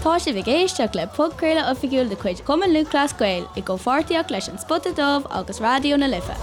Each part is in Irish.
Tá sibh ag éisteacht le podchraoladh oifigiúil de chuid Chumann Lúthchleas Gael i gcomhpháirtíocht leis An Spota Dubh agus Raidió na Life.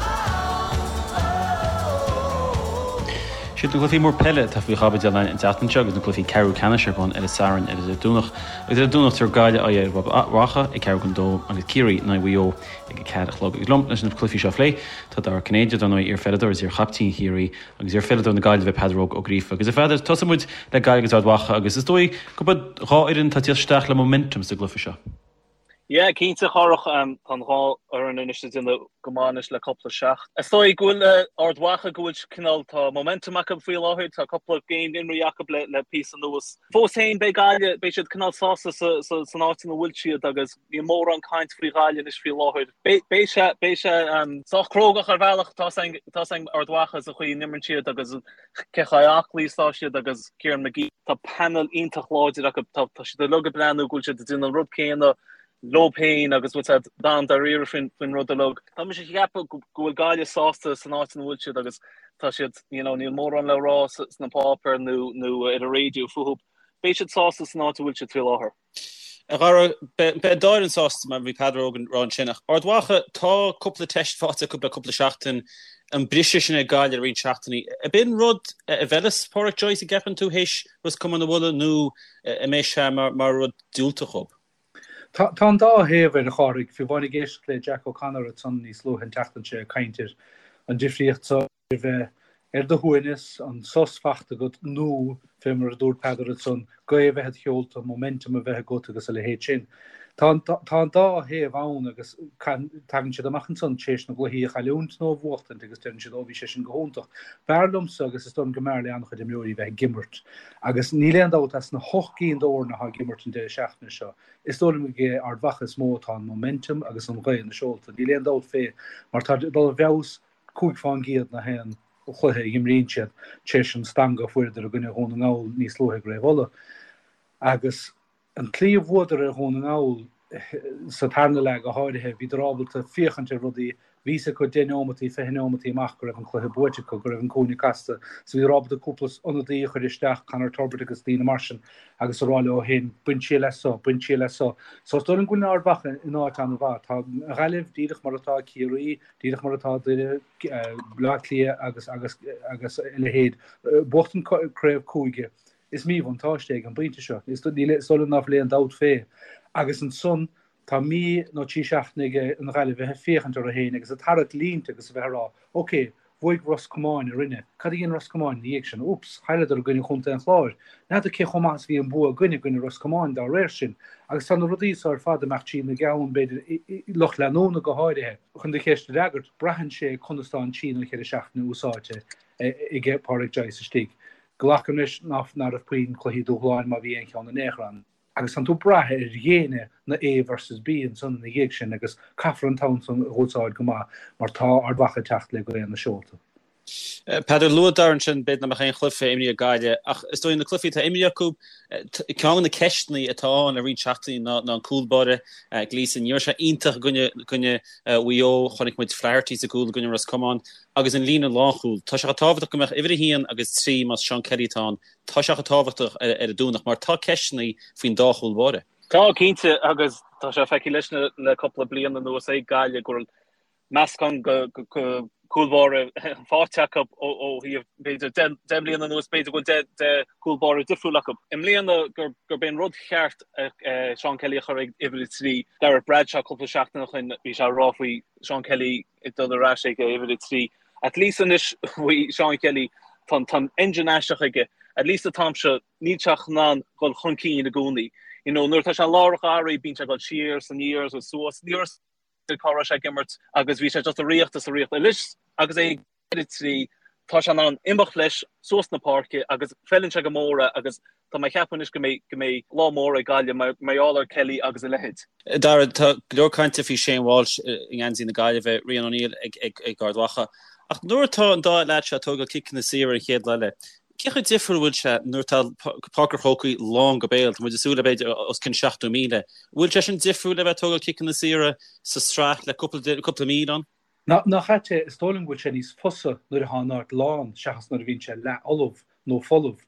Siad na cluichí mór peile atá faoi chaibidil againn an tseachtain seo agus na cluichí ceathrú ceannais ar bun ar an Satharn agus ar an Domhnach. Agus ar an Domhnach tabharfaidh Gaillimh aghaidh ar Ard Mhacha ag ceathrú chun dó agus Ciarraí in aghaidh Mhaigh Eo ag a ceathair a chlog. Agus liom leis na cluichí seo a phlé tá Dara Ó Cinnéide, dar ndóigh, iar-pheileadóir agus iar-chaiptín Chiarraí agus iar-pheileadóir na Gaillimhe Peadar Óg Ó Gríofa. Agus a Pheadair, tosóidh muid le Gaillimh agus Ard Mhacha agus is dóigh gurb iad dhá fhoireann atá ag tíocht isteach le momentum sa gcluiche seo. Yeah, cinnte, a Chárthach, tá an dhá fhoireann anois ag déanamh go maith anois le cúpla seachtain. Is dóigh go bhfuil Ard Mhacha go bhfuil cineál, tá momentum acu faoi láthair, tá cúpla game imrithe acu le le píosa anuas. Fós féin beidh Gaillimh, beidh siad cineál sásta sa sa san áit ina bhfuil siad agus níl mórán caint faoi Ghaillimh anois faoi láthair. Beidh sé, beidh sé sách crógach ar bhealach, tá a fhios ag Ard Mhacha sa chaoi a n-imríonn siad agus cé chomh aclaí is atá siad agus Kieran McGee, tá panel iontach láidir acu, tá siad uilig ag breathnú go bhfuil siad ag déanamh an rud céanna leo féin agus bhfuil siad an-dáiríre faoin rud uilig. Tá mise ag ceapadh go bhfuil Gaillimh sásta san áit ina bhfuil siad agus tá siad, you know, níl mórán le rá sna páipéir nó nó ar an raidió fúthu. Beidh siad sásta san áit a bhfuil siad faoi láthair. A Dhara, beidh an dá fhoireann sásta mar bhí Peadar Óg ag rá ansin ach Ard Mhacha, tá cúpla teist faighte acu le cúpla seachtain, an briseadh sin ag Gaillimh le roinnt seachtainí. Ab in rud a bhfeilfeas Pádraic Joyce, an gceapann tú, théis Ros Comáin a bhualadh nó an mbeidh sé mar rud diúltach dhób? Tá an dá thaobh air, a Chárthaigh. Fiú amháin ag éisteacht le Jack O'Connor ansan níos luaithe an tseachtain seo ag caint ar an difríocht so. a bheith ar do shuaimhneas, an sos fachta agat nó, fé mar a dúirt Peadar ansan, gaoth a bheith id sheolta, momentum a bheith agat agus a leithéid sin. Tá an tá an dá thaobh ann agus tagann siad amach ansan tar éis na gcluichí a chailliúint nó a bhuachtaint agus deireann siad ó bhí sé sin go hiontach. B'fhearr liomsa agus is dóigh liom go mb'fhearr le an-chuid imreoirí bheith ag imirt agus níl aon dabht as na hocht gcinn d'fhoirne atá ag imirt an deireadh seachtaine seo, is dóigh liom ag Ard Mhacha is mó atá an momentum agus an ghaoth ina seolta. Níl aon dabht fé mar tá dul i bhfeabhas 5 fán gcéad na haon chluiche a imríonn siad tar éis an stangadh a fuaireadar i gcoinne Dhún na nGall níos luaithe i gCraobh Uladh. Agus an tslí a bhuadar ar Dhún na nGall sa tarna leath go háirithe, bhíodar ábalta féachaint ar rudaí, bhí fhios acu 10 neomataí, 20 neomataí amach go raibh an cluiche buaite acu, go raibh an cúinne casta, so bhíodar ábalta cúpla ionadaí a chur isteach, Conor Turbitt agus daoine mar sin, agus a rá leo féin, bain triail as so, bain triail as so. So is dóigh liom go bhfuil Ard Mhacha in áit an-mhaith. Tá an Ghaillimh díreach mar atá Ciarraí, Díreach mar atá Doire, Bleá Cliath agus agus agus a leithéid. Buachtaint craobh cúige, is míbhuntáiste é ag an bpointe seo. Is dóigh liom ná fuil aon dabht fé. Agus ansan tá mí nó 3 seachtaine ag an Ghaillimh bheith ag féachaint orthu féin agus ag tarrac línte agus a bheith ag rá, ok, bhuaigh Ros Comáin orainne, cad a dhein Ros Comáin ina dhiaidh sin? Oops, chailleadar i gcoinne Chontae an Chláir. N'fheadar cé chomh maith is a bhí an bua againn i gcoinne Ros Comáin dá réir sin. Agus tá na rudaí so ar fad ag imeacht trína gceann, b'fhéidir, lucht leanúna go háirithe. Chun do cheist a fhreagairt, braitheann sé conas tá an trí nó cheithre seachtaine úsáidte aige Pádraic Joyce istigh. Glacaim leis ná raibh puinn cluichí dúshláin má bhí aon cheann in aon chor ann. Agus tánn tú ag brath ar dhéine na A versus B ansan ina dhiaidh sin agus caithfear an t-am san a úsáid go maith mar tá Ard Mhacha ag teacht le gaoth ina seolta. Peadar, luaigh Dara ansin, b'fhéidir nach mbeadh aon chluiche imrithe ag Gaillimh ach is dóigh na cluichí atá imrithe acu, ceann de na ceisteanna atá ann le roinnt seachtainí ná an cúl báire, Gleeson. Ní raibh sé iontach i gcoinne Mhaigh Eo, chonaic muid Flaherty sa gcúl i gcoinne Ros Comáin agus an líne lánchúil. Tá sé chomh tábhachtach go mbeadh uimhir a haon agus 3 más Seán Kelly atá ann, tá sé chomh tábhachtach ar an Domhnach mar tá ceisteanna faoin dá chúl báire. Tá, cinnte, agus tá sé feicthe leis le cúpla bliain anuas ag Gaillimh go bhfuil meascán de chúl báire faighte acu ó thaobh b'fhéidir 10 mbliana anuas, b'fhéidir go bhfuil 10 cúl báire difriúil acu. I mbliana gurb é an rud cheart Seán Kelly a chur ag uimhir 3. Gareth Bradshaw cúpla seachtain ó shin bhí sé ag rá faoi Seán Kelly ag dul ar ais ag uimhir 3. At least anois faoi Seán Kelly tá an engine aisteach aige. At least an t-am seo níl sé in ann dul chun cinn i gcónaí. You know nuair atá sé i lár an gharraí bíonn sé ag dul siar is aniar is suas. Ní raibh cá raibh sé ag imirt agus bhí sé just ag ritheacht is ag ritheacht. Anois agus é ag uimhir 3 tá sé in ann imeacht leis suas na páirce agus feileann sé go mór é agus tá mé ag ceapadh anois go mbeidh go mbeidh lá mór ag Gaillimh mar mar gheall ar Kelly agus a leithéid. Dara, tá go leor cainte faoi Shane Walsh i ngeansaí na Gaillimhe, Rian O'Neill ag ag ag Ard Mhacha. Ach nuair atá an dá leaid seo ag tógáil ciceanna saora ar an chéad lá eile, Cé chomh difriúil a bhfuil sé nuair atá Páirc an Chrócaigh lán go béal, tá muid ag súil le b'fhéidir os cionn 70,000. Bhfuil sé sin difriúil le bheith ag tógáil ciceanna saora sa tsraith le cúpla míle ann? Nach ait é, is dóigh liom go bhfuil sé níos fusa nuair atá an áit lán seachas nuair a bhíonn sé leathfholamh nó folamh.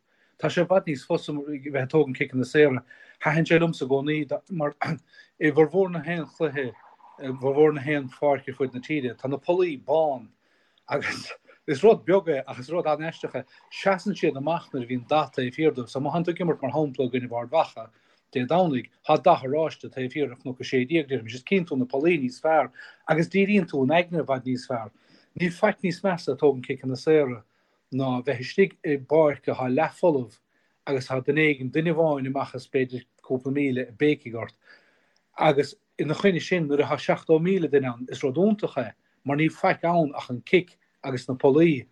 Tá sé i bhfad níos fusa bheith ag tógaint ciceanna saora. Thaitin sé liomsa i gcónaí mar i bhformhór na haon chluiche, i bhformhór na haon pháirc ar fud na tíre, tá na pollaí bán agus is rud beag é ach is rud an-aisteach é, seasann siad amach nuair a bhíonn dath taobh thiar dóibh. So má thánn tú ag imirt mar shampla i gcoinnibh Ard Mhacha Dé Domhnaigh, tá dath oráiste taobh thiar de Chnoc 16, déarfaimis, is cíonn tú na pollaí níos fearr agus díríonn tú an aigne i bhfad níos fearr. Níl faic níos measa ag tógaint ciceanna saora ná bheith istigh i bpáirc atá leathfholamh agus tá duine éigin, duine amháin amach as b'fhéidir cúpla míle ag béicigh ort. Agus ina choinne sin, nuair atá 70,000 duine ann, is rud iontach é mar níl faic ann ach an cic agus na pollaí.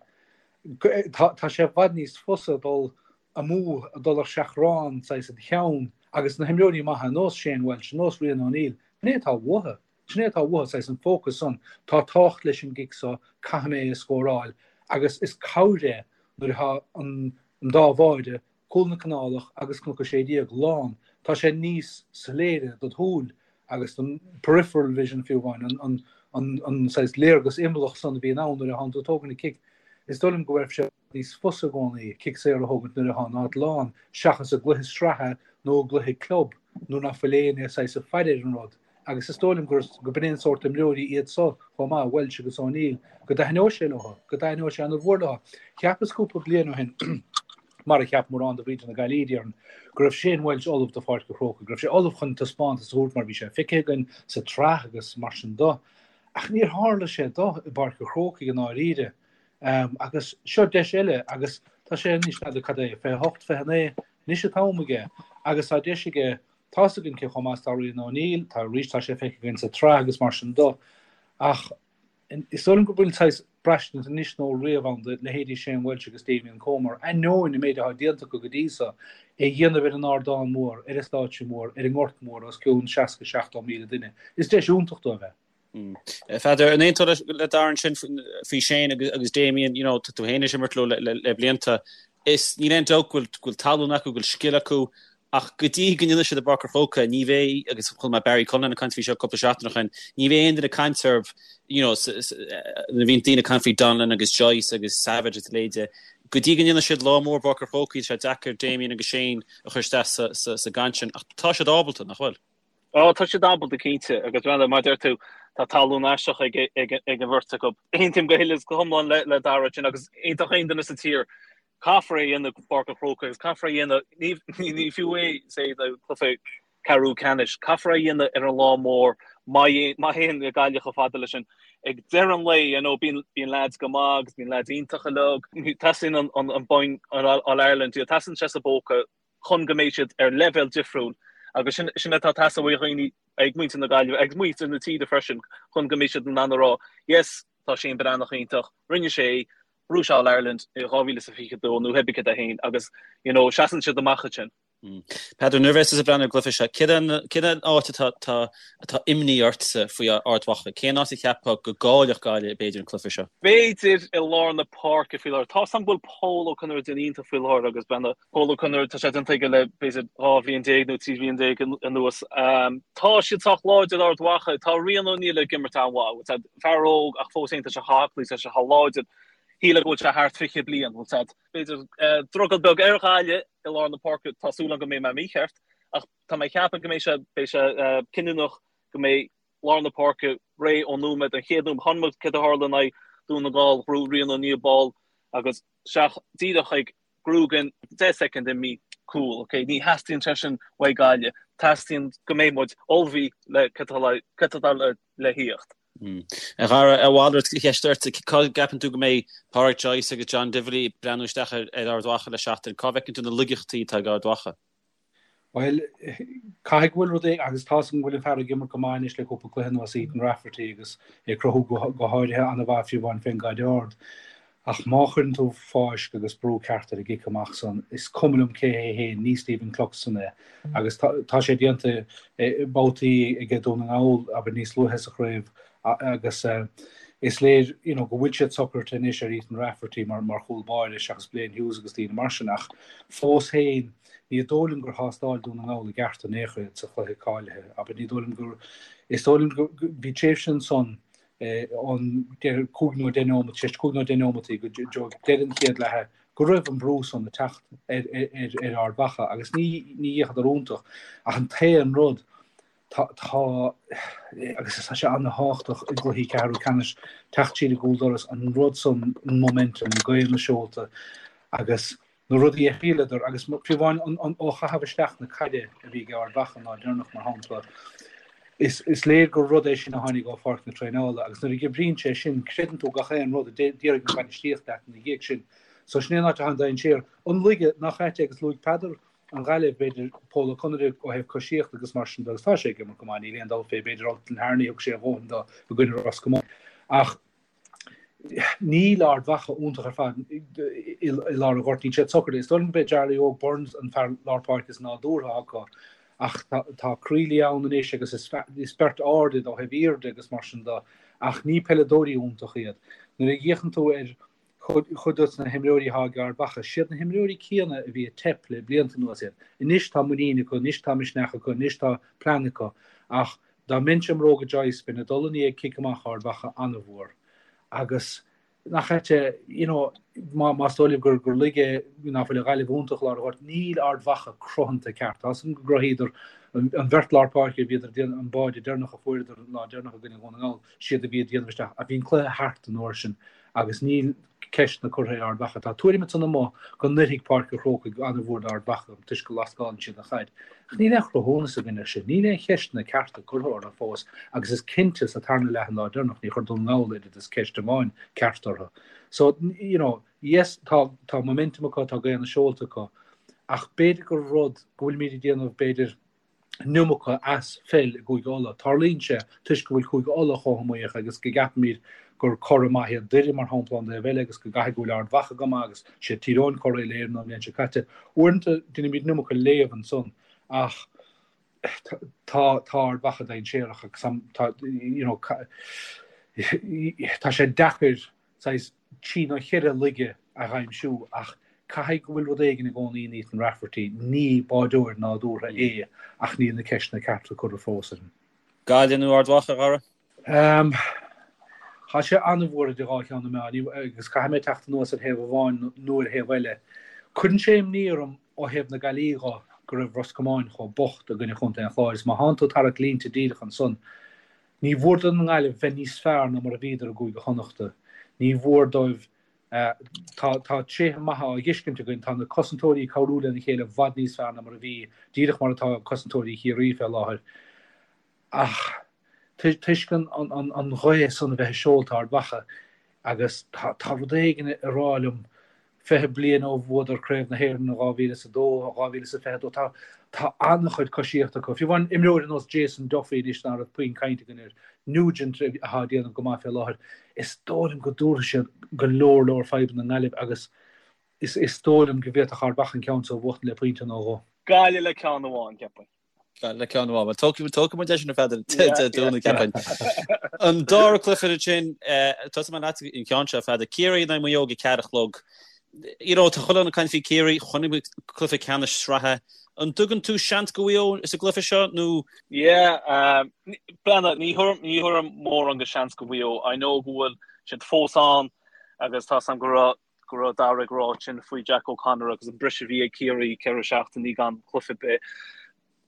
Tá sé i bhfad níos fusa dul amú, dul ar seachrán, saghas i do cheann, agus na himreoirí maithe ar nós Shane Walsh, ar nós Rian O'Neill, sin é atá uathu. Sin é atá uathu, saghas an fócas san, tá tábhacht leis an gcic so, caithfidh mé é a scóráil, agus is cabhair é nuair atá an dá bháide, Cúl na Canálach agus Cnoc 16, lán, tá sé níos soiléire dod shúil agus don peripheral vision fiú amháin, an saghas léargas imeallach san a bhíonn ann nuair atánn tú ag tógaint an cic. Is dóigh liom go bhfuil sé níos fusa i gcónaí cic saor a thógaint nuair atá an áit lán seachas i gcluiche sraithe nó i gcluiche club nuair ná fuil éinne saghas ag faire ar an rud agus is dóigh liom gur go b'in é an sórt imreoirí iad so chomh maith, Walsh agus O'Neill, go dtaitneoidh sé leo, go dtaitneoidh sé an-mhór leo. Cheapas cúpla bliain ó shin, mar a cheap mórán de mhuintir na Gaillimhe, déarfainn, go raibh Shane Walsh ullamh do Pháirc an Chrócaigh, go raibh sé ullamh chun taispeántas a thabhairt mar bhí sé feicthe againn sa tsraith agus mar sin do. Ach níor tharla sé do i bPáirc an Chrócaigh i ndáiríre. Agus seo deis eile agus tá sé anois, n'fheadar cad é, 28, 29, anois an t-am aige agus tá deis aige, tá's againn cé chomh maith is atá Rian O'Neill, tá arís, tá sé feicthe againn sa tsraith agus mar sin do. Ach is dóigh liom go bhfuil saghas braistint anois nó riamh ann do leithéidí Shane Walsh agus Damien Comer, ainneoin an méid atá déanta acu go dtí so, é a dhéanamh ar an ardán mór, ar an stáitse mór, ar an ngort mór os cionn 60, 70 míle duine. Is deis iontach dóibh é. Pheadair, an aontófá le Darren sin faoi Shane agus Damien, you know, tá tú féin tar éis imirt leo le blianta. Is níl aon dabht go bhfuil tallann acu, go bhfuil scil acu, ach go dtí go ndéanfaidh siad i bPáirc an Chrócaigh, ní bheidh, agus chuala mé Barry Cullinan ag caint faoi seo cúpla seachtain ó shin, ní bheidh aon duine ag caint orthu, you know, nuair a bhíonn daoine ag caint faoi Donnellan agus Joyce agus Savage agus a leithéide, go dtí go ndéanfaidh siad lá mór i bPáirc an Chrócaigh, tá sé deacair Damien agus Shane a chur isteach sa gcaint sin, ach tá siad ábalta, nach bhfuil? Ó, tá siad ábalta cinnte, agus mar a deir tú, tá tallann aisteach ag an bheirt acu. Aontaím go huile is go hiomlán le Dara ansin agus aontódh aon duine sa tír, caithfear é a dhéanamh i bPáirc an Chrócaigh agus caithfear é a dhéanamh, ní fiú é say do chluiche ceathrú ceannais, caithfear é a dhéanamh ar an lá mór má théann Gaillimh chomh fada leis sin. Ag deireadh an lae, you know, bíonn leaids go maith agus bíonn leaids iontacha uilig, teastaíonn an bonn All-Ireland, teastaíonn sé sa bpóca chun go mbeidh siad ar leibhéal difriúil agus sin sin atá ag teastáil ó dhaoine ag muintir na Gaillimhe agus muintir na tíre freisin chun go mbeidh siad in ann a rá yes tá Shane Breathnach iontach, rinne sé é, bhuaigh sé All Ireland i 2022 nó pé ar bith cad é féin agus you know seasann siad amach ansin. Peadar, nuair a bheas tusa ag breathnú ar an gcluiche seo, cén an áit atá atá imní ortsa faoi Ard Mhacha? Cén áit a cheapfá go gcaillfeadh Gaillimh b'fhéidir an cluiche seo? B'fhéidir i lár na páirce faoi láthair. Tá's agam go bhfuil Pól Ó Conaire ag déanamh iontach faoi láthair agus bean Pól Ó Conaire, tá sé déanta aige le b'fhéidir 12 bhliain nó 13 bhliain anuas. Tá siad sách láidir Ard Mhacha. Tá Rian O'Neill ag imirt an-mhaith. Bhfuil fear óg ach fós féin tá sé chomh haclaí, tá sé chomh láidir. Shílfeá go bhfuil sé thart 20 bliain, bhfuil fhios a'd. B'fhéidir drogall beag ar Ghaillimh i lár na páirce, tá súil agam go mbeidh mé mícheart, ach tá mé ag ceapadh go mbeidh sé, beidh sé cinniúnach go mbeidh lár na páirce réidh ón nóiméad, an chéad nóiméad. Chonaic muid céard a tharla in aghaidh Dún na nGall, ghnóthaigh Rian O'Neill ball agus isteach díreach ag Grugan, 10 soicind imithe, cúl, ok, ní theastaíonn sé sin uaidh Gaillimh, teastaíonn go mbeidh muid ullmhaithe le cad atá le thíocht. A Dhara, a mhalairt de cheist ort, cá gceapann tú go mbeidh Pádraic Joyce agus John Divilly ag breathnú isteach ar Ard Mhacha le seachtain? Cá bhfeiceann tú na laigeachtaí atá ag Ard Mhacha? Bhuel, caithfidh go bhfuil rud éigin, agus tá's agam go bhfuil an fear ag imirt go maith anois le cúpla cluiche anuas, Ethan Rafferty, agus é ag cruthú go háirithe an-mhaith fiú amháin fén gcaid ard. Ach má chuireann tú fáisc agus brú ceart ar an gcic amach san, is cuma liom cé hé féin, ní Stephen Cluxton é. Agus tá sé déanta babhtaí aige Dún na nGall, abair, níos luaithe sa chraobh, agus is léir you know go bhfuil siad socraithe anois ar Ethan Rafferty mar mar chúl báire seachas Blaine Hughes agus daoine mar sin ach fós féin ní dóigh liom gur thástáil Dún na nGall i gceart in aon chor iad sa chluiche cáilithe abair ní dóigh liom gur is dóigh liom go bhí tréimhse ansan ón 5 nó 10 neomat, 5 nó 10 neomataí go deireadh an chéad leatha. Go raibh an brú san ag teacht ar ar Ard Mhacha agus ní ní dheachadar iontach ach an t-aon rud tá tá agus tá sé an-thábhachtach i gcluichí ceathrú ceannais teacht siar i gcúl doras an rud san an momentum gaoth na seolta agus na rudaí a thriaileadar agus fiú amháin an ó chaitheamh isteach na caide a bhí ag Ard Mhacha an lá deireanach mar shampla is is léir gur rud é sin a tháinig ó pháirc na traenála agus nuair a oibríonn sé sin creideann tú gach aon rud a déarfaidh an bhainistíocht leat ina dhiaidh sin. So sin é an áit atá an dainséar. An laige nach ait é agus luaigh Peadar an Ghaillimh, b'fhéidir Pól Ó Conaire ó thaobh coisíochta agus mar sin de agus tá sé ag imirt go maith, níl aon dabht fé, b'fhéidir Ultan Harney thug sé a dhóthain dó i gcoinne Ros Comáin. Ach níl Ard Mhacha iontach ar fad i lár an ghoirt, níl siad socair. Is dóigh liom gurb é Jarly Óg Burns an fear lár páirce is nádúrtha acu ach tá Creeley ann anois agus is beirt ard iad ó thaobh airde agus mar sin de ach ní peileadóirí iontach iad. Nuair a fhéachann tú ar chuid dos na himreoirí atá ag Ard Mhacha, siad na himreoirí céanna a bhí ag teip le blianta anuas iad. Anois tá muinín acu, anois tá misneach acu, anois tá plean acu ach dá mbeinnse i mbróga Joyce bheinn ag dul i ndiaidh cic amach Ard Mhacha an-mhór agus nach ait é, you know, má, más dóigh libh gur, gur laige ná fuil an Ghaillimh iontach i lár an ghoirt, níl Ard Mhacha cruthanta ceart. Tá 'fhios agam go gcruthaíodar an, an bheirt lár páirce a bhíodar ag déanamh, an báide deireanach a fuaireadar an lá deireanach i gcoinne Dhún na nGall, siad a bhí ag déanamh isteach ach bhí an cluiche thart an uair sin agus níl ceisteanna curtha ar Ard Mhacha. Tá tuairim ansan amuigh go n-oirfidh Páirc an Chrócaigh an-mhór d'Ard Mhacha toisc go lascálann siad an chaid. Ach níl aon chruthúnas againn air sin. Níl aon cheisteanna cearta curtha orthu fós agus is cinnte sa tarna leath an lá deireanach ní chuir Dún na nGall oiread is ceist amháin ceart orthu. So, you know, yes, tá, tá momentum acu, tá gaoth na seolta acu ach b'fhéidir gur rud go bhfuilimid ag déanamh, b'fhéidir, an iomarca as pheil i gCúige Uladh. Tarlaíonn sé toisc go bhfuil Cúige Uladh chomh hiomaíoch agus go gceapaimid gur curaidh maith iad Doire, mar shampla, ón dtaobh eile agus go gcaithfidh go bhfuil Ard Mhacha go maith agus siad Tír Eoghain curaidh Uile-Éireann an bhliain seo caite. Uaireanta déanaimid an iomarca léamh ansan ach tá tá Ard Mhacha dainséarach agus tá you know tá sé deacair saghas trí nó cheithre laige a aimsiú ach caithfidh go bhfuil rud éigin i gcónaí in Ethan Rafferty, ní báideoir nádúrtha é ach níl na ceisteanna cearta curtha fós air. Gaillimh nó Ard Mhacha, a Dhara? Tá sé an-mhór idir dhá cheann na meá agus caithfidh mé teacht anuas ar thaobh amháin nó ar thaobh eile. Cuireann sé imní orm ó thaobh na Gaillimhe dho go raibh Ros Comáin chomh bocht i gcoinne Chontae an Chláir is má thánn tú ag tarrac línte díreach ansan, Ní mhór don nGaillimh bheith níos fearr ná mar a bhíodar i gCúige Chonnachta. Ní mhór dóibh. Tá tá tréithe maithe á bhfeiscint againn. Tá na cosantóirí ag cabhrú lena chéile i bhfad níos fearr ná mar a bhí, díreach mar atá cosantóirí Chiarraí fé láthair. Ach toisc an an an ghaoth san a bheith i seolta Ard Mhacha agus tá tá rud éigin ag rá liom 20 bliain ó bhuadar Craobh na hÉireann in 2002, 2022, tá tá an-chuid coisíochta acu. Fiú amháin imreoir ar nós Jason Duffy anois ná raibh puinn cainte againn air, Nugent atá ag déanamh go maith fé láthair, is dóigh liom go dtabharfaidh siad go leor leor fadhbanna don nGaillimh agus is is dóigh liom go bhféadfadh Ard Mhacha an ceann seo a bhuachtaint le pointe nó dhó. Gaillimh le ceann amháin, ceapaim. Le ceann amháin. Bhuel, tógfaidh tógfaidh muid é sin a Pheadair Dé Domhnaigh, ceapaim. An dara cluiche ansin, tosóidh mé leat an ceann seo, a Pheadair. Ciarraí in aghaidh Mhaigh Eo ag a ceathair a chlog. You know, tá chuile dhuine ag caint faoi Ciarraí, chonaic muid cluiche ceannais sraithe. An dtugann tú seans do Mhaigh Eo sa gcluiche seo nó? Yeah, breathnaigh, ní thabharfainn ní thabharfainn mórán de seans go Mhaigh Eo. I know go bhfuil siad fós ann agus tá 's a'm go raibh go raibh Dara ag rá sin faoi Jack O'Connor agus an briseadh a bhí ag Ciarraí, 4 seachtainí gan cluiche ar bith.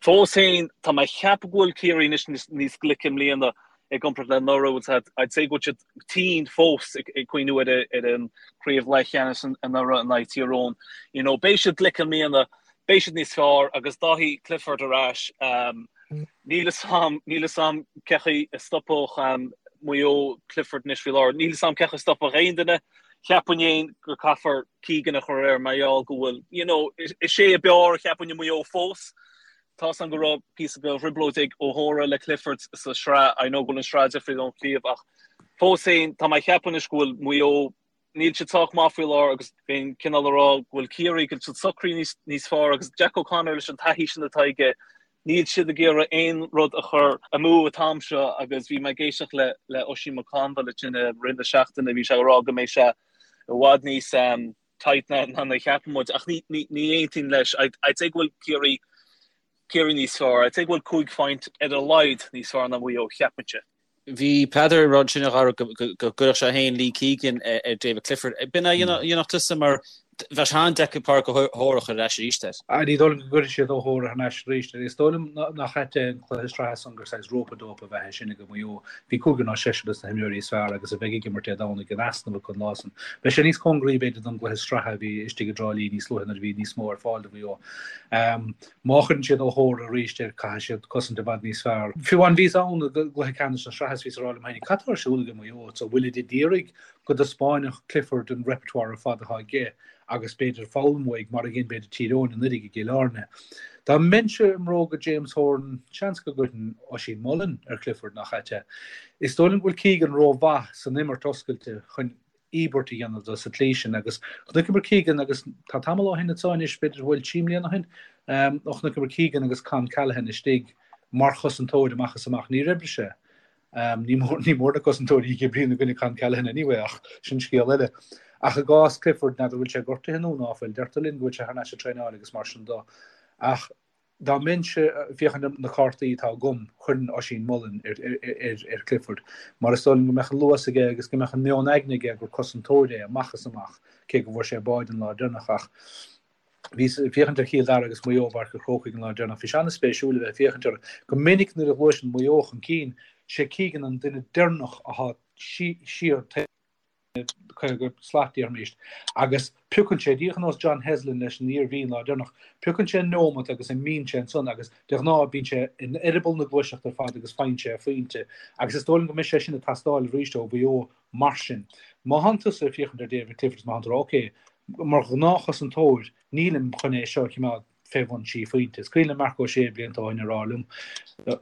Fós féin, tá mé ag ceapadh go bhfuil Ciarraí anois níos glice i mbliana i gcomparáid le anuraidh. I'd say go bhfuil siad tinn fós ag cuimhniú ar ar an craobh leathcheannais anuraidh in aghaidh Tír Eoghain. You know, beidh siad glic i mbliana, beidh siad níos fearr agus Dáithí Clifford ar ais. Níl 'fhios a'm, níl 'fhios a'm cé chaoi a stopfadh Maigh Eo Clifford anois faoi láthair. Níl 'fhios a'm cé chaoi a stopfadh aon duine. Cheapfainn fhéin go caithfear Keegan a chur air mar gheall go bhfuil, you know, is é ab fhearr cheapfainn i Maigh Eo fós. Tá 'fhios a'm go raibh píosa beag trioblóid ag O'Hora le Clifford sa sraith, I know go bhfuil an sraith difriúil ón chraobh ach fós féin tá mé ag ceapadh anois go bhfuil Maigh Eo Níl siad sách maith faoi láthair agus bheinn cineál ag rá go bhfuil Ciarraí, go bhfuil siad socraithe níos, níos fearr agus Jack O'Connor leis an taithí sin atá aige, níl siad ag iarraidh aon rud a chur amú an t-am seo agus bhí mé ag éisteacht le, le Oisín McConville ansin i rith na seachtaine, bhí sé ag rá go mbeidh sé i bhfad níos um, tight ná, ná a cheapann muid ach ní, ní, ní aontaím leis. I'd, I'd say go bhfuil Ciarraí, Ciarraí níos fearr. I'd say go bhfuil 5 phointe ar a laghad níos fearr ná Maigh Eo, cheapfainnse. Bhí Peadar ag rá ansin a Dhara go gcuirfeadh sé féin Lee Keegan ar David Clifford. B'in a dhéanfadh tusa mar Bheadh sé an-deacair Pádraic Ó hEochaidh a chur ar ais arís air. Ní dóigh liom go gcuirfidh siad Ó hEochaidh thar n-ais arís air. Is dóigh liom nach ait é an cluiche sraithe san gur saghas rope-a-dope ab ea é sin ag Maigh Eo. Bhí cúigear nó seisear dos na himreoirí is fearr agus a bheidh ag imirt Dé Domhnaigh in easnamh acu an lá san. Beidh sé níos cóngaraí b'fhéidir don gcluiche sraithe a bhí istigh i dTrá Lí níos luaithe nuair a bhí níos mó ar fáil do Mhaigh Eo. Má chuireann siad Ó hEochaidh arís air caithfidh siad cosaint i bhfad níos fearr. Fiú amháin bhíos ann i gcluiche ceannais na sraithe is bhíos ag rá liom féin cad tá ar siúl ag Maigh Eo? An bhfuilid ag iarraidh go dtaispeánfadh Clifford an repertoire ar fad atá aige agus b'fhéidir foghlaim uaidh, mar a dhein b'fhéidir Tír Eoghain anuraidh i gCill Airne. Dá mbeinnse i mbróga James Horan, seans go gcuirfinn Oisín Mullin ar Clifford, nach ait é? Is dóigh liom go bhfuil Keegan rómhaith san imirt oscailte chun íobairt a dhéanamh de sa tslí sin agus chonaiceamar Keegan agus tá tamall ó shin anseo anois, b'fhéidir go bhfuil trí mbliana ó shin, ó chonaiceamar Keegan agus Con Callaghan istigh mar chosantóir amach is amach. Níor oibrigh sé. Ní mór ní mór na cosantóirí ag oibriú i gcoinne Con Callaghan anyway ach sin scéal eile. Ach i gcás Clifford, n'fheadar bhfuil sé gortaithe nó ná fuil, deirtear linn go bhfuil sé thar n-ais ag traenáil agus mar sin do. Ach dá mbeinnse ag féachaint ar na cártaí atá agam, chuirfinn Oisín Mullin ar ar Clifford mar is dóigh liom go mbeadh an luas aige agus go mbeadh an meon aigne aige gur cosantóir é amach is amach, cé go bhfuair sé báide an lá deireanach ach Bhíos ag féachaint ar Chill Dara agus Maigh Eo i bPáirc an Chrócaigh an lá deireanach. Bhí sé an-spéisiúil a bheith ag féachaint orthu. Go minic nuair a ghluaiseann Maigh Eo chun cinn, sé Keegan an duine deireanach atá siar taobh 50 slat, déarfaimis, agus piocann sé, díreach ar nós John Heslin leis an Iarmhí an lá deireanach, piocann sé neomat agus imíonn sé ansan agus de ghnáth bíonn sé in eireaball na gluaiseachta ar fad agus faigheann sé a phointe. Agus is dóigh liom go mbeidh sé sin ag teastáil arís ó Mhaigh Eo Mar sin, má thánn tusa ag féachaint ar David Clifford is má thánn tú ag rá, ok, mar ghnáthchosantóir, nílim chun é seo a choimeád fé bhun trí phointe. Is cuimhin le Marc Ó Sé blianta ó shin a rá liom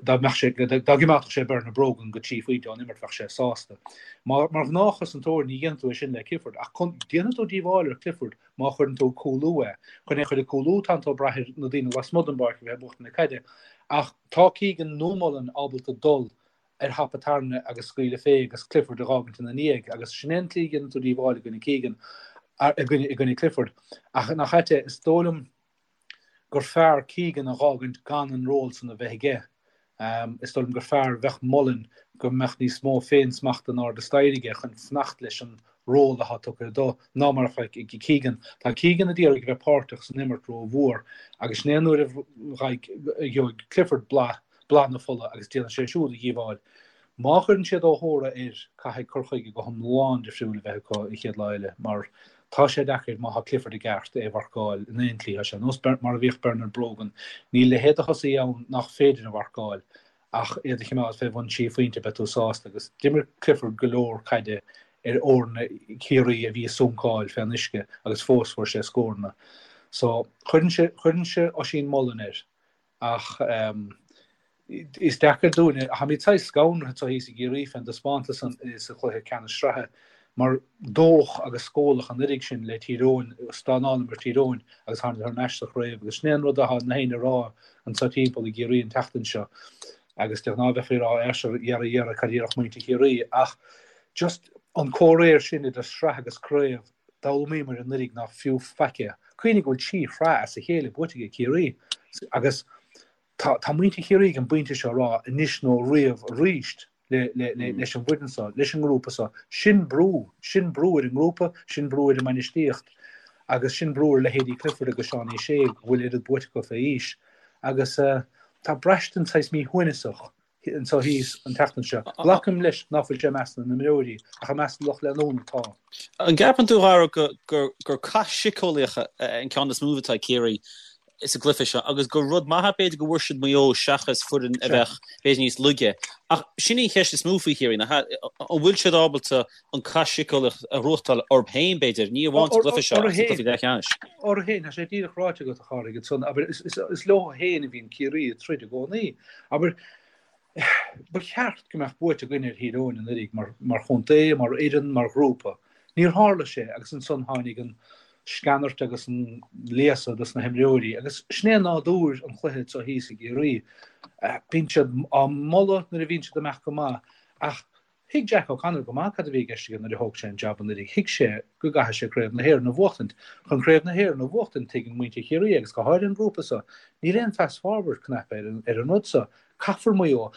dá mbeadh sé, dá gcoimeádfadh sé Bernard Brogan go trí phointe ón imirt bheadh sé sásta. Mar ghnáthchosantóir ní dhéanfaidh tú é sin le Clifford ach déanfaidh tú díobháil ar Clifford má chuireann tú ag cúlú é. Chun é a chur ag cúlú tánn tú ag brath ar na daoine lasmuigh den bpáirc a bheith ag buachtaint na caide ach tá Keegan nó Mullin ábalta dul ar thapa tairne agus scaoileadh fé agus Clifford a dh'fhágaint ina ndiaidh agus sin é an tslí a dhéanann tú díobháil i gcoinne Keegan, i gcoinne, i gcoinne Clifford. Ach nach ait é, is dóigh liom gur fearr Keegan a dh'fhágaint gan an ról san a bheith aige. Is dóigh liom gur fearr bheadh Mullin go mbeadh níos mó féin-smachta in airde staighre aige chun fanacht leis an ról atá tugtha dó ná mar a bheadh ag Keegan. Tá Keegan a d'iarraidh a bheith páirteach san imirt ró-mhór agus sin é an uair a gheobhaidh Clifford blas blas na fola agus déanfaidh sé siúd a dhíobháil. Má chuireann siad Ó hÓra air, caithfidh cur chuige go hiomlán difriúil a bheith acu an chéad lá eile mar tá sé deacair má tá Clifford i gceart é a mharcáil in aon tslí. Tá sé nós mar a bhíodh Bernard Brogan. Níl leithéid de thosaí ann nach féidir a mharcáil ach iad a choimeád fé bhun trí phointe beidh tú sásta agus d'imir Clifford go leor caide ar fhoirne Chiarraí a bhí ag suncáil fén uisce agus fós fuair sé scóranna. So chuirfinnse chuirfinnse Oisín Mullin air. Ach is deacair dúinne, táimid saghas scanraithe anseo thíos i gCiarraí fén dtaispeántas san sa chluiche ceannais sraithe, mar dódh agus scóladh an oiread sin le Tír Eoghain, stánálamar Tír Eoghain agus tháinig thar n-ais sa chraobh agus sin é an rud atá na héinne a rá anseo timpeall i gCiarraí an tseachtain seo agus de ghnáth bheifí ag rá ar sure dhera dhera cad a déarfadh muintir Chiarraí ach just an comhréir sin idir sraith agus craobh D'fhoghlaimíomar anuraidh nach fiú faic é. Cuimhnigh go bhfuil 3 shraith as a chéile buaite ag Ciarraí agus tá tá muintir Chiarraí ag an bpointe seo a rá anois nó riamh arís le le le leis an bhfoireann seo, leis an ngrúpa seo. Sin brú, sin brú ar an ngrúpa, sin brú ar an mbainistíocht agus sin brú ar leithéidí Clifford agus Seánie Shea go bhfuil oiread buaite acu fé aois. Agus tá braistint saghas míshuaimhneasach anseo thíos an tseachtain seo. Glacaim leis ná fuil sé i measc na n-imreoirí, ach i measc an lucht leanúna tá. An gceapann tú, a Dhara, gur cath síceolaíoch an ceann is mó atá ag Ciarraí sa gcluiche seo agus gur rud maith é b'fhéidir go bhfuair siad Maigh Eo seachas foireann a bheadh b'fhéidir níos laige. Ach sin í an cheist is mó faoi Chiarraí, nach ea? An bhfuil siad ábalta an cath síceolaíoch a ghnóthachtáil orthu féin, b'fhéidir, ní amháin sa gcluiche seo ach sa gcluiche leathcheannais? Orthu féin, tá sé díreach ráite agat, a Chárthaigh, ansan. Abair, is leo féin a bhíonn Ciarraí ag troid i gcónaí. Abair, ba cheart go mbeadh buaite againn ar Thír Eoghain anuraidh mar, mar chontae, mar fhoireann, mar ghrúpa. Níor tharla sé agus ansan tháinig an sceanairt agus an léasadh dos na himreoirí agus sin é nádúr an chluiche anseo thíos i gCiarraí. Bíonn siad á moladh nuair a bhíonn siad ag imeacht go maith ach Thuig Jack O'Connor go maith cad a bhí i gceist aige nuair a thóg sé an jab anuraidh. Thuig sé go gcaithfeadh sé Craobh na hÉireann a bhuachtaint. Chun Craobh na hÉireann a bhuachtaint, tuigeann muintir Chiarraí, agus go háirithe an grúpa seo, níl aon fast forward cnaipe ar an ar an rud seo. Caithfear Maigh Eo.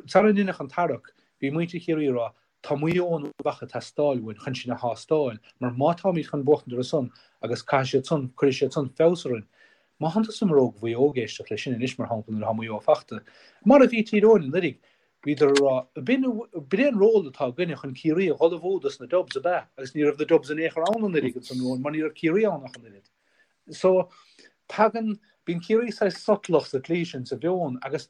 Sara ndeineadh an tarrac, bhí muintir Chiarraí ag rá, Tá Maigh Eo nó Uíbh Fhacha ag teastáil uainn chun sinn a thástáil, mar má táimid chun buachtaint orthu san. Agus caithfidh siad san, cuirfidh siad san feabhas orainn. Má thánn tusa imreoir do Mhaigh Eo ag éisteacht leis sin anois, mar shampla, nuair atá Maigh Eo fachta, mar a bhí Tír Eoghain anuraidh, bhíodar ag rá, b'in, b'in é an ról atá againne chun Ciarraí a dhul amú dos na Dubs, ab ea? Agus ní raibh na Dubs in aon chor ann anuraidh ansan romhainn mar ní raibh Ciarraí ann ach an oiread. So, tagann, bíonn Ciarraí saghas sotalach sa tslí sin, sa mheon, agus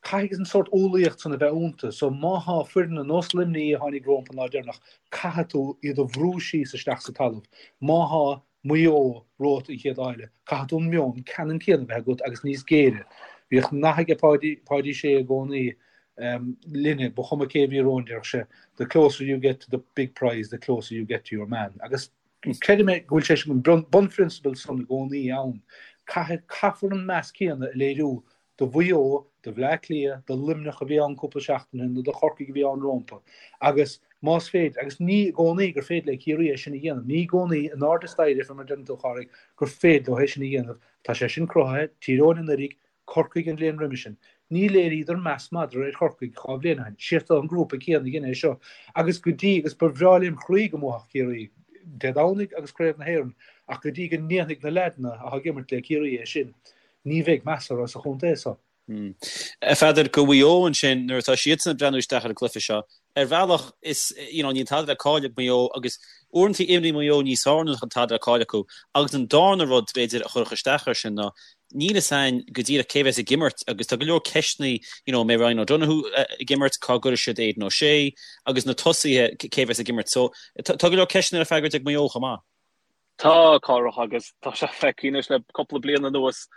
caithfidh an sórt umhlaíocht san a bheith iontu. So, má thá foireann ar nós Luimnigh a tháinig rompu an lá deireanach, caithfidh tú iad a bhrú síos isteach sa talamh. Má thá Maigh Eo romhat an chéad lá eile, caithfidh tú an meon ceannann céanna a bheith agat agus níos géire. Bhíodh nath aige Páidí, Páidí Sé i gcónaí linne, ba chuma cé a bhí romhainn, déarfadh sé, the closer you get to the big prize, the closer you get to your man. Agus Creidim é go bhfuil sé sin, an bunphrionsabal san i gcónaí ann. Caithfidh, caithfear an meas céanna a léiriú do Mhaigh Eo, do Bhleá Cliath, do Luimneach a bhí ann cúpla seachtain ó shin nó do Chorcaigh a bhí ann rómpa. Agus más féidir, agus ní i gcónaí gur féidir le Ciarraí é sin a dhéanamh, ní i gcónaí in airde staighre fé mar a deireann tú, a Chárthaigh, gur féidir leo é sin a dhéanamh. Tá sé sin cruthaithe, Tír Eoghain anuraidh, Corcaigh an bhliain roimhe sin. Ní léiríodar meas madra ar Chorcaigh 2 bhliain ó shin. Siad an grúpa céanna a dhein é seo. Agus go dtí, agus ba bhreá lem chroí go mbuafadh Ciarraí Dé Domhnaigh agus Craobh na hÉireann, ach go dtí go ndéanfaidh na leaideanna atá ag imirt le Ciarraí é sin, ní bheidh meas orthu sa chontae so. A Pheadair, do Mhaigh Eo ansin, nuair atá siadsan ag breathnú isteach ar an gcluiche seo, ar bhealach is, you know, níl tada le cailleadh ag Maigh Eo agus uaireanta imríonn Maigh Eo níos fearr nuair nach bhfuil tada le cailleadh acu. Agus an darna rud, b'fhéidir, a chuirfeadh isteach air sin ná níl fhios a'inn go díreach cé bheas ag imirt agus tá go leor ceisteanna, you know, an mbeidh Ryan O'Donoghue ag imirt, cá gcuirfidh siad Aidan O'Shea agus na tosaithe, cé bheas ag imirt. So tá go leor ceisteanna le freagairt ag Maigh Eo chomh maith. Tá, a Chárthaigh, agus tá sé feicthe anois le cúpla bliain anuas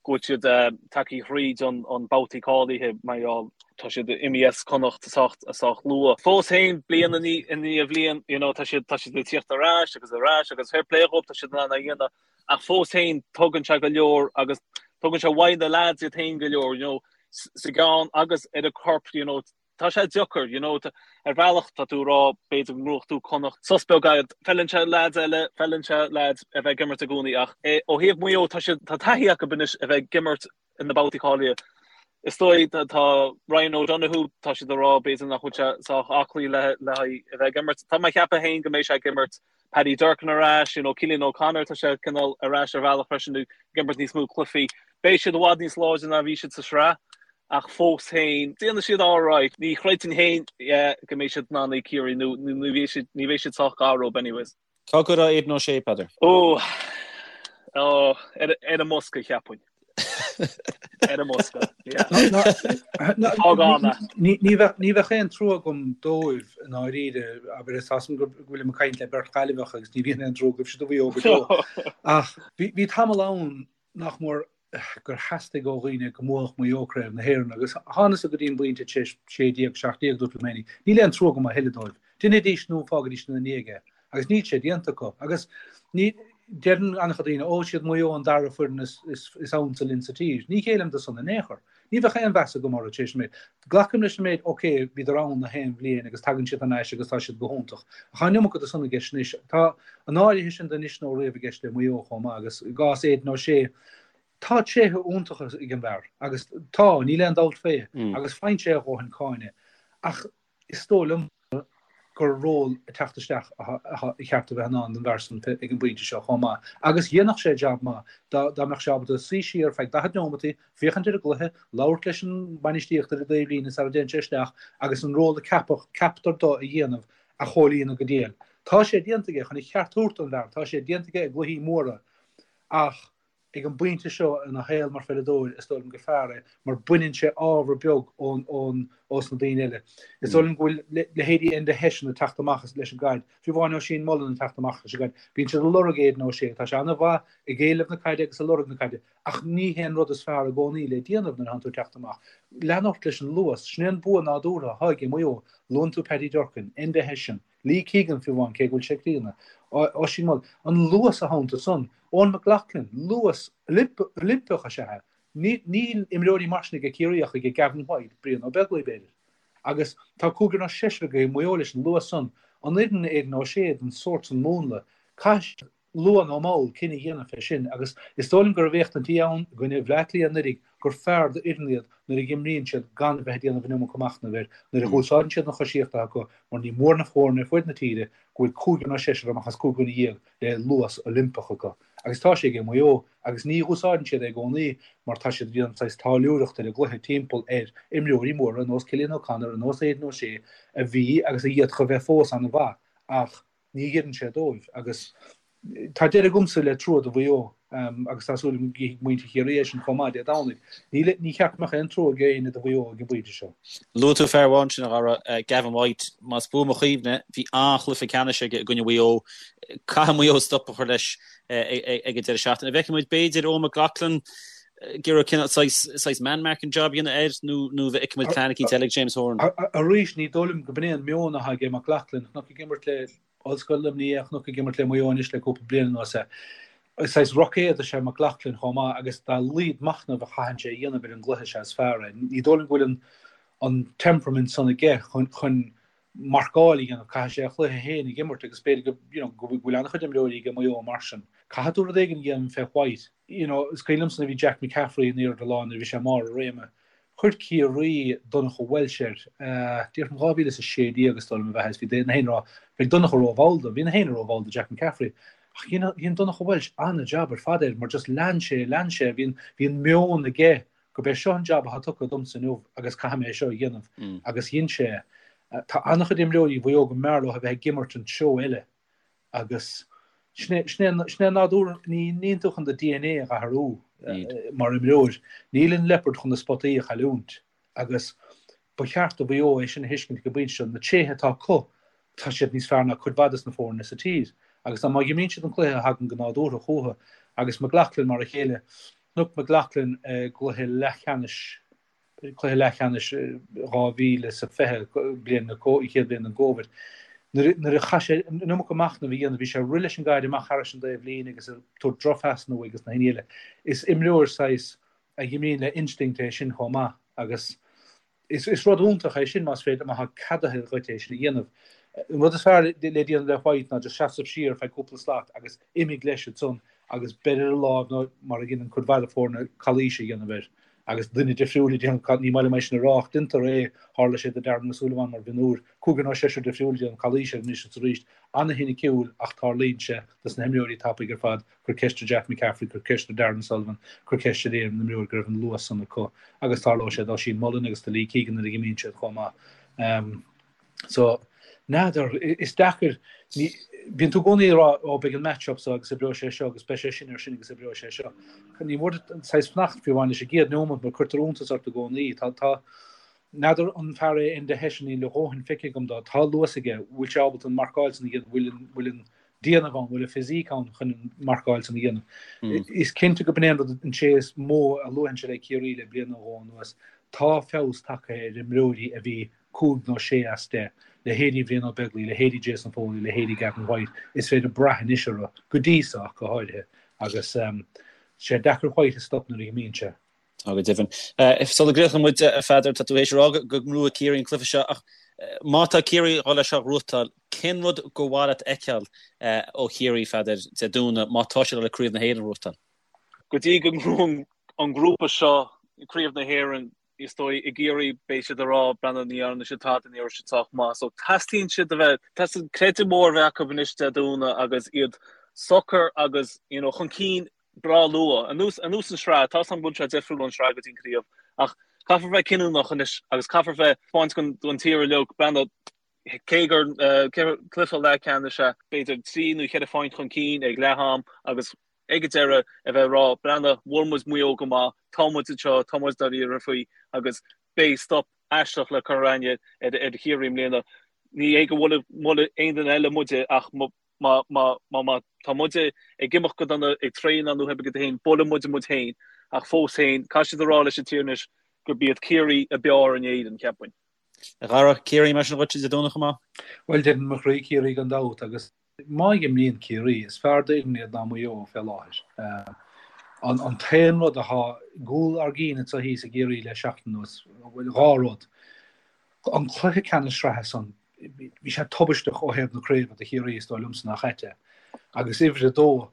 go bhfuil siad tagtha thríd an babhtaí cáilithe mar gheall tá siad imithe as Connacht sách sách luath. Fós féin, bliain i ndiaidh bhliain, you know, tá siad tá siad ag tíocht ar ais agus ar ais agus fair play dhóibh, tá siad in ann é a dhéanamh ach fós féin tugann sé go leor agus tugann sé uaidh na lads iad féin go leor, you know, sa gceann agus ar an corp, you know, tá sé deacair, you know, ar bhealach tá tú ag rá b'fhéidir go ngnóthódh tú Connacht, sos beag agat, feileann sé lads eile, feileann sé lads a bheith ag imirt i gcónaí ach eh, ó thaobh Maigh Eo tá siad, tá taithí acu anois a bheith ag imirt in na babhtaí cáilithe. Is dóigh tá, tá Ryan O'Donoghue, tá siad ag rá b'fhéidir nach bhfuil sé sách aclaí le, le haghaidh a bheith ag imirt. Tá mé ag ceapadh féin go mbeidh sé ag imirt Paddy Durcan ar ais, you know, Cillian O'Connor, tá sé cineál ar ais ar bhealach freisin ag imirt níos mó cluichí. Beidh siad i bhfad níos láidre ná bhí siad sa sraith. ach fós féin, déanfaidh siad alright. Ní chreidfinn féin go mbeidh siad in ann Ciarraí nó ní bheidh siad, ní bheidh siad sách gar dóibh anyways. Cá gcuirfeá Aidan O'Shea, Peadar? Ó, ó, ar, ar an mbosca, cheapfainn. Ar an mbosca, yeah. Fág ann é. Ní, ní bheadh, ní bheadh aon trua agam dóibh i ndáiríre, abair, is as go bhfuilim ag caint le beirt Ghaillimheach agus ní bhíonn aon trua agaibhse do Mhaigh Eo go deo. Ach bhí, bhí tamall ann nach mór gur theastaigh ó dhaoine go mbuafadh Maigh Eo Craobh na hÉireann agus thánasa go dtí an bpointe tar éis 16, 17 dúirt liom féinig, níl aon trua agam a thuilleadh dóibh. Deinidís nó fágaidís ina ndiaidh é. Agus níl sé déanta acu. Agus ní, deireann an-chuid daoine, ó, siad Maigh Eo an dara foireann is, is, is ansa linn sa tír. Ní ghéillim do san in aon chor. Ní bheadh aon mheas agam orthu tar éis an méid. Glacaim leis an méid, ok, bhíodar ann na haon bhliain agus tagann siad thar n-ais agus tá siad go hiontach. Ach tá an iomarca de san i gceist anois. Tá an áirithe sin de anois nó riamh i gceist le Maigh Eo chomh maith agus i gcás Aidan O'Shea, tá tréithe iontacha ag an bhfear agus tá, níl aon dabht fé, agus faigheann sé a dhóthain cáinte. Ach is dóigh liom gur ról ag teacht isteach atá ceart a bheith in ann don bhfear san ag an bpointe seo chomh maith. Agus dhéanfadh sé jab maith dá dá mbeadh sé ábalta suí siar feadh 40 neomataí, féachaint ar an gcluiche, labhairt leis an mbainistíocht ar an dtaobhlíne sara dtéann sé isteach agus an ról a ceapadh, ceaptar dó a dhéanamh a chomhlíonadh go diail. Tá sé déanta aige, chun a cheart a thabhairt don bhfear, tá sé déanta aige i gcluichí móra ach Ag an bpointe seo ina shaol mar pheileadóir, is dóigh liom gur fearr é mar baineann sé ábhar beag ón, ón, ós na daoine eile. Is dóigh liom go bhfuil leithéidí Enda Hession ag teacht amach leis an gcaid, fiú amháin Oisín Mullin ag teacht amach leis an gcaid. Bíonn siad ag lorg Aidan O'Shea, tá sé an-mhaith ag éileamh na caide agus ag lorg na caide, ach ní hé an rud is fearr i gcónaí le déanamh nuair atánn tú ag teacht amach. Lean ort leis an luas, sin é an bua nádúrtha atá ag Maigh Eo. Luann tú Paddy Durcan, Enda Hession, Lee Keegan fiú amháin, cé go bhfuil sé críonna. Oisín Mullin, an luas atá iontu san. Eoghan McLaughlin, luas Oilimpeach is ea é. Níl imreoirí mar sin ag Ciarraí ach ag Gavin White, Brian Ó Beaglaoich b'fhéidir. Agus tá cúigear nó seisear ag Maigh Eo leis an luas san. An oireann Aidan O'Shea don sórt san múnla? Caithfidh siad, luath nó mall, cinneadh a dhéanamh fé sin agus is dóigh liom go raibh éachtaintí ann i gcoinne Bhleá Cliath anuraidh. gur fearr d'fhoireann iad nuair a dh'imríonn siad gan a bheith ag déanamh an iomarca machnaimh air, nuair a dh'úsáideann siad an choisíocht atá acu, mar ní mór na foirne ar fuaid na tíre go bhfuil cúigear nó seisear amach as 15 dhuine le luas Oilimpeach acu. Agus tá sé ag Maigh Eo, agus ní dh'úsáideann siad é i gcónaí mar tá siad ag déanamh saghas táilliúireacht ar an gcluiche timpeall ar imreoirí móra ar nós Cillian O'Connor, ar nós Aidan O'Shea, a bhí agus a d'fhéadfadh a bheith fós an-mhaith ach ní oireann sé dóibh. Agus tá deireadh agamsa le trua do Mhaigh Eo agus tá súil agam go gcífidh muintir Chiarraí é sin chomh maith Dé Domhnaigh. Níl, ní cheart go mbeadh aon trua ag éinne do Mhaigh Eo ag an bpointe seo. Luaigh tú fear amháin sin, a Dhara, Gavin White. Más buan mo chuimhne, bhí an-chluiche ceannais aige i gcoinne Mhaigh Eo. Caithfidh Maigh Eo stop a chur leis ag an deireadh seachtaine. An bhfeicfidh muid, b'fhéidir, Eoin McLaughlin ag iarraidh cineál saghas man-marking job a dhéanamh air nó nó bhfeicfidh muid plean eicínt eile ag James Horan? Arís, ní dóigh liom go b'in é an meon atá ag McLaughlin. Chonac ag imirt le Ollscoil Luimnigh é, chonac ag imirt le Maigh Eo anois le cúpla bliain anuas é. Saghas roicéad is ea McLaughlin chomh maith agus dá laghad machnaimh a chaitheann sé a dhéanamh ar an gcluiche is ea is fearr é. Ní dóigh liom go bhfuil an temperament san aige chun marcáil a dhéanamh, caithfidh sé a chluiche féin a dh'imirt agus b'fhéidir go, you know, go bhfuil an-chuid imreoirí ag Maigh Eo mar sin. Caithfidh tú rud éigin a dhéanamh fé White. You know, is cuimhin liomsa nuair a bhí Jack McCaffrey in airde lá nuair a bhí sé i mbarr a réime. Chuir Ciarraí Donncha Walsh air, déarfainn 2016 is dóigh liom ab ea, is bhí na héinne ag rá, beidh Donncha rómhall dó, bhí na héinne rómhall do Jack McCaffrey. Ach dhein, dhein Donncha Walsh an-jab ar fad air mar just lean sé, lean sé, bhí an, bhí an meon aige gurb é seo an jab atá tugtha domsa inniu agus caithfidh mé é seo a dhéanamh agus dhein sé é. Tá an-chuid imreoirí Mhaigh Eo go mb'fhearr leo a bheith ag imirt an treo eile agus sin é, sin é, sin é nádúr, ní, níl tú chun do DNA a dh'athrú mar imreoir. Níl an liopard chun na spotaí a chailliúint agus ba cheart do Mhaigh Eo é sin a thuiscint ag an bpointe seo, na tréithe atá acu, tá siad níos fearr ná cuid mhaith des na foirne sa tír agus má dh'imríonn siad an cluiche a thagann go nádúrtha chucu agus McLaughlin mar a chéile, Chonac McLaughlin i gcluiche leathcheannais, cluiche leathcheannais 2020, bliain na, an chéad bhliain den gCovid. Nuair a chaith sé an iomarca machnaimh a dhéanamh, bhí sé ag rith leis an gcaid amach thairis an dtaobh líne agus ag tabhairt drochphasanna uaidh agus na héinne eile. Is imreoir saghas a dh'imríonn le instinct é sin chomh maith agus Is rud iontach é sin más féidir, má tá ceadaithe dhuit é sin a dhéanamh. An rud is fearr le déanamh le White ná just seasamh siar feadh cúpla slat agus imigh leis ansan agus beir ar a láimh nó mar a dheineann cuid mhaith de foirne calaois a dhéanamh air agus duine difriúil ag déanamh, ní maith liom é sin a rá ach deintear é, tharla sé do Darran O'Sullivan mar mhionúr, cúigear nó seisear difriúil ag déanamh calaois air anois is arís. Ana-shoiniciúil ach tarlaíonn sé dos na himreoirí tapaidh ar fad. Cuir ceist ar Jack McCaffrey, cuir ceist ar Darran O'Sullivan, cuir ceist ar aon imreoir go raibh an luas san acu agus tarlóidh sé d'Oisín Mullin agus do Lee Keegan nuair a dh'imíonn siad chomh maith. So, n'fheadar, is deacair, ní, bíonn tú i gcónaí ag rá, ó beidh an match-up so agus oibreoidh sé seo agus beidh sé sin ar sin agus oibreoidh sé seo. Ní mór duit saghas fanacht fiú amháin leis an gcéad neomat mar cuirtear iontas ort i gcónaí. Tá, tá, n'fheadar an fear é Enda Hession, níl a dhóthain feicthe agam dó, tá luas aige, bhfuil sé ábalta an marcáil san a dhéanamh, bhfuil an, bhfuil an, déanamh ann, bhfuil an physique ann chun an marcáil san a dhéanamh. Is cinnte go b'in é an rud, an tréith is mó a luafainn le Ciarraí le bliain nó dhó anuas. Tá feabhas tagtha ar imreoirí a bhí 5 nó 6 as 10, leithéidí Bhrian Ó Beaglaoich, leithéidí Jason Foley, leithéidí Gavin White, is féidir brath anois orthu, go dtí so ach go háirithe, agus tá sé deacair White a stop nuair a dh'imíonn sé. Tá go deimhin. Sula gcríochnóidh muid, a Pheadair, tá tú théis a rá go ngnóthóidh Ciarraí an cluiche seo ach má tá Ciarraí ag dul é seo a ghnóthachtáil, cén rud gur mhaith leat a fheiceáil ó Chiarraí, a Pheadair, Dé Domhnaigh má tá siad ag dul Craobh na hÉireann a ghnóthachtáil? Go dtí go ngnóthaíonn an grúpa seo Craobh na hÉireann, is dóigh, i gCiarraí beidh siad ag rá, breathnaigh, ní dhearna siad tada, ní raibh siad sách maith. So teastaíonn siad a bheith, teastaíonn creideamh mór a bheith acu anois Dé Domhnaigh agus iad socair agus, you know, chun cinn breá luath. Anuas an tsraith, tá 's agam go bhfuil sé difriúil ón sraith go dtí an craobh, ach caithfear bheith cinniúnach anois agus caithfear bheith taispeáint don tír uilig, breathnaigh, cé gur cluiche leathcheannais é, b'fhéidir 3 nó 4 phointe chun cinn ag leath am agus ag an deireadh a bheith ag rá, breathnaigh, bhuail muid Maigh Eo go maith, tá muid anseo, tá muid dáiríre faoi agus beidh stop aisteach le cur againne ar Chiarraí i mbliana. Ní hé go mbuailfidh aon duine eile muide ach Má má tá muide ag imeacht go dona ag traenáil nó oibre féin, buailfidh muide muid féin, ach fós féin, caithfidh siad a rá leis an tír anois gurb iad Ciarraí ab fhearr in Éirinn, cheapfainn. A Dhara, Ciarraí mar sin dhuit Dé Domhnaigh chomh maith? Bhuel, deireann mo chroí Ciarraí gan dabht agus má imríonn Ciarraí, is fearr d'fhoireann iad ná Maigh Eo fé láthair. An t-aon rud atá i gcúl ár gcinn anseo thíos i gCiarraí le seachtain anuas, bhuel, dhá rud. An cluiche ceannais sraithe san, bhí sé tubaisteach ó thaobh na craoibhe do Chiarraí, is dóigh liomsa, nach ait é. Agus uimhir a dó,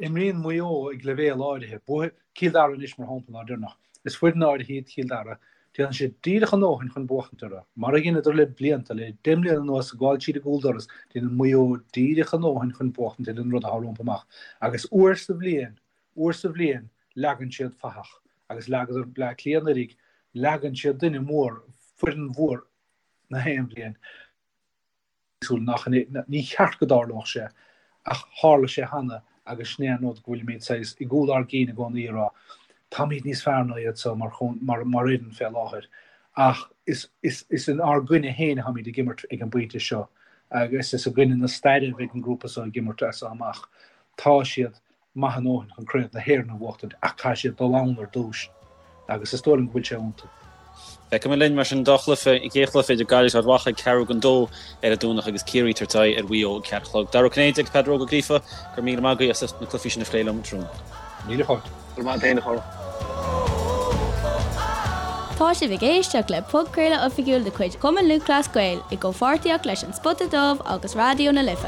Imríonn Maigh Eo ag leibhéal áirithe. Buafaidh Cill Dara anois, mar shampla, an lá deireanach. Is foireann áirithe iad Cill Dara. Déanann siad díreach a ndóthain chun buachtaint orthu. Mar a dheineadar le blianta, le deich mbliana anuas, ag gabháil tríd an gcúldoras, déanann Maigh Eo díreach a ndóthain chun buachtaint ar an rud atá rompu amach. Agus uair sa bhliain, uair sa bhliain, leagann siad fathach. Agus leagadar Bleá Cliath anuraidh, leagann siad duine mór, foireann mhór na haon bhliain. súil nach ní cheart go dtarlódh sé ach tharla sé cheana agus sin é an rud go bhfuilimid saghas i gcúl ár gcinn i gcónaí ag rá táimid níos fearr ná iad seo mar mar mar fhoireann fé láthair ach is is is in ár gcoinne féin atáimid ag imirt ag an bpointe seo agus is i gcoinne na staire a bheidh an grúpa seo ag imirt as seo amach. Tá siad maith a ndóthain chun Craobh na hÉireann a bhuachtaint ach caithfidh siad dul ann ar dtús agus is dóigh liom go bhfuil sé iontu. Feicfimid linn mar sin an dá chluiche, an chéad chluiche idir Gaillimh agus Ard Mhacha ag ceathrú don dó ar an Domhnach agus Ciarraí ag tabhairt aghaidh ar Mhaigh Eo ag ceathair a chlog. Dara Ó Cinnéide agus Peadar Óg Ó Gríofa, go raibh míle maith agaibh as ucht na cluichí sin a phlé liom tráthnóna. Míle fáilte. Go raibh maith agat féin a chara. Tá sibh ag éisteacht le podchraoladh oifigiúil de chuid Chumann Lúthchleas Gael i gcomhpháirtíocht leis An Spota Dubh agus Raidió na Life.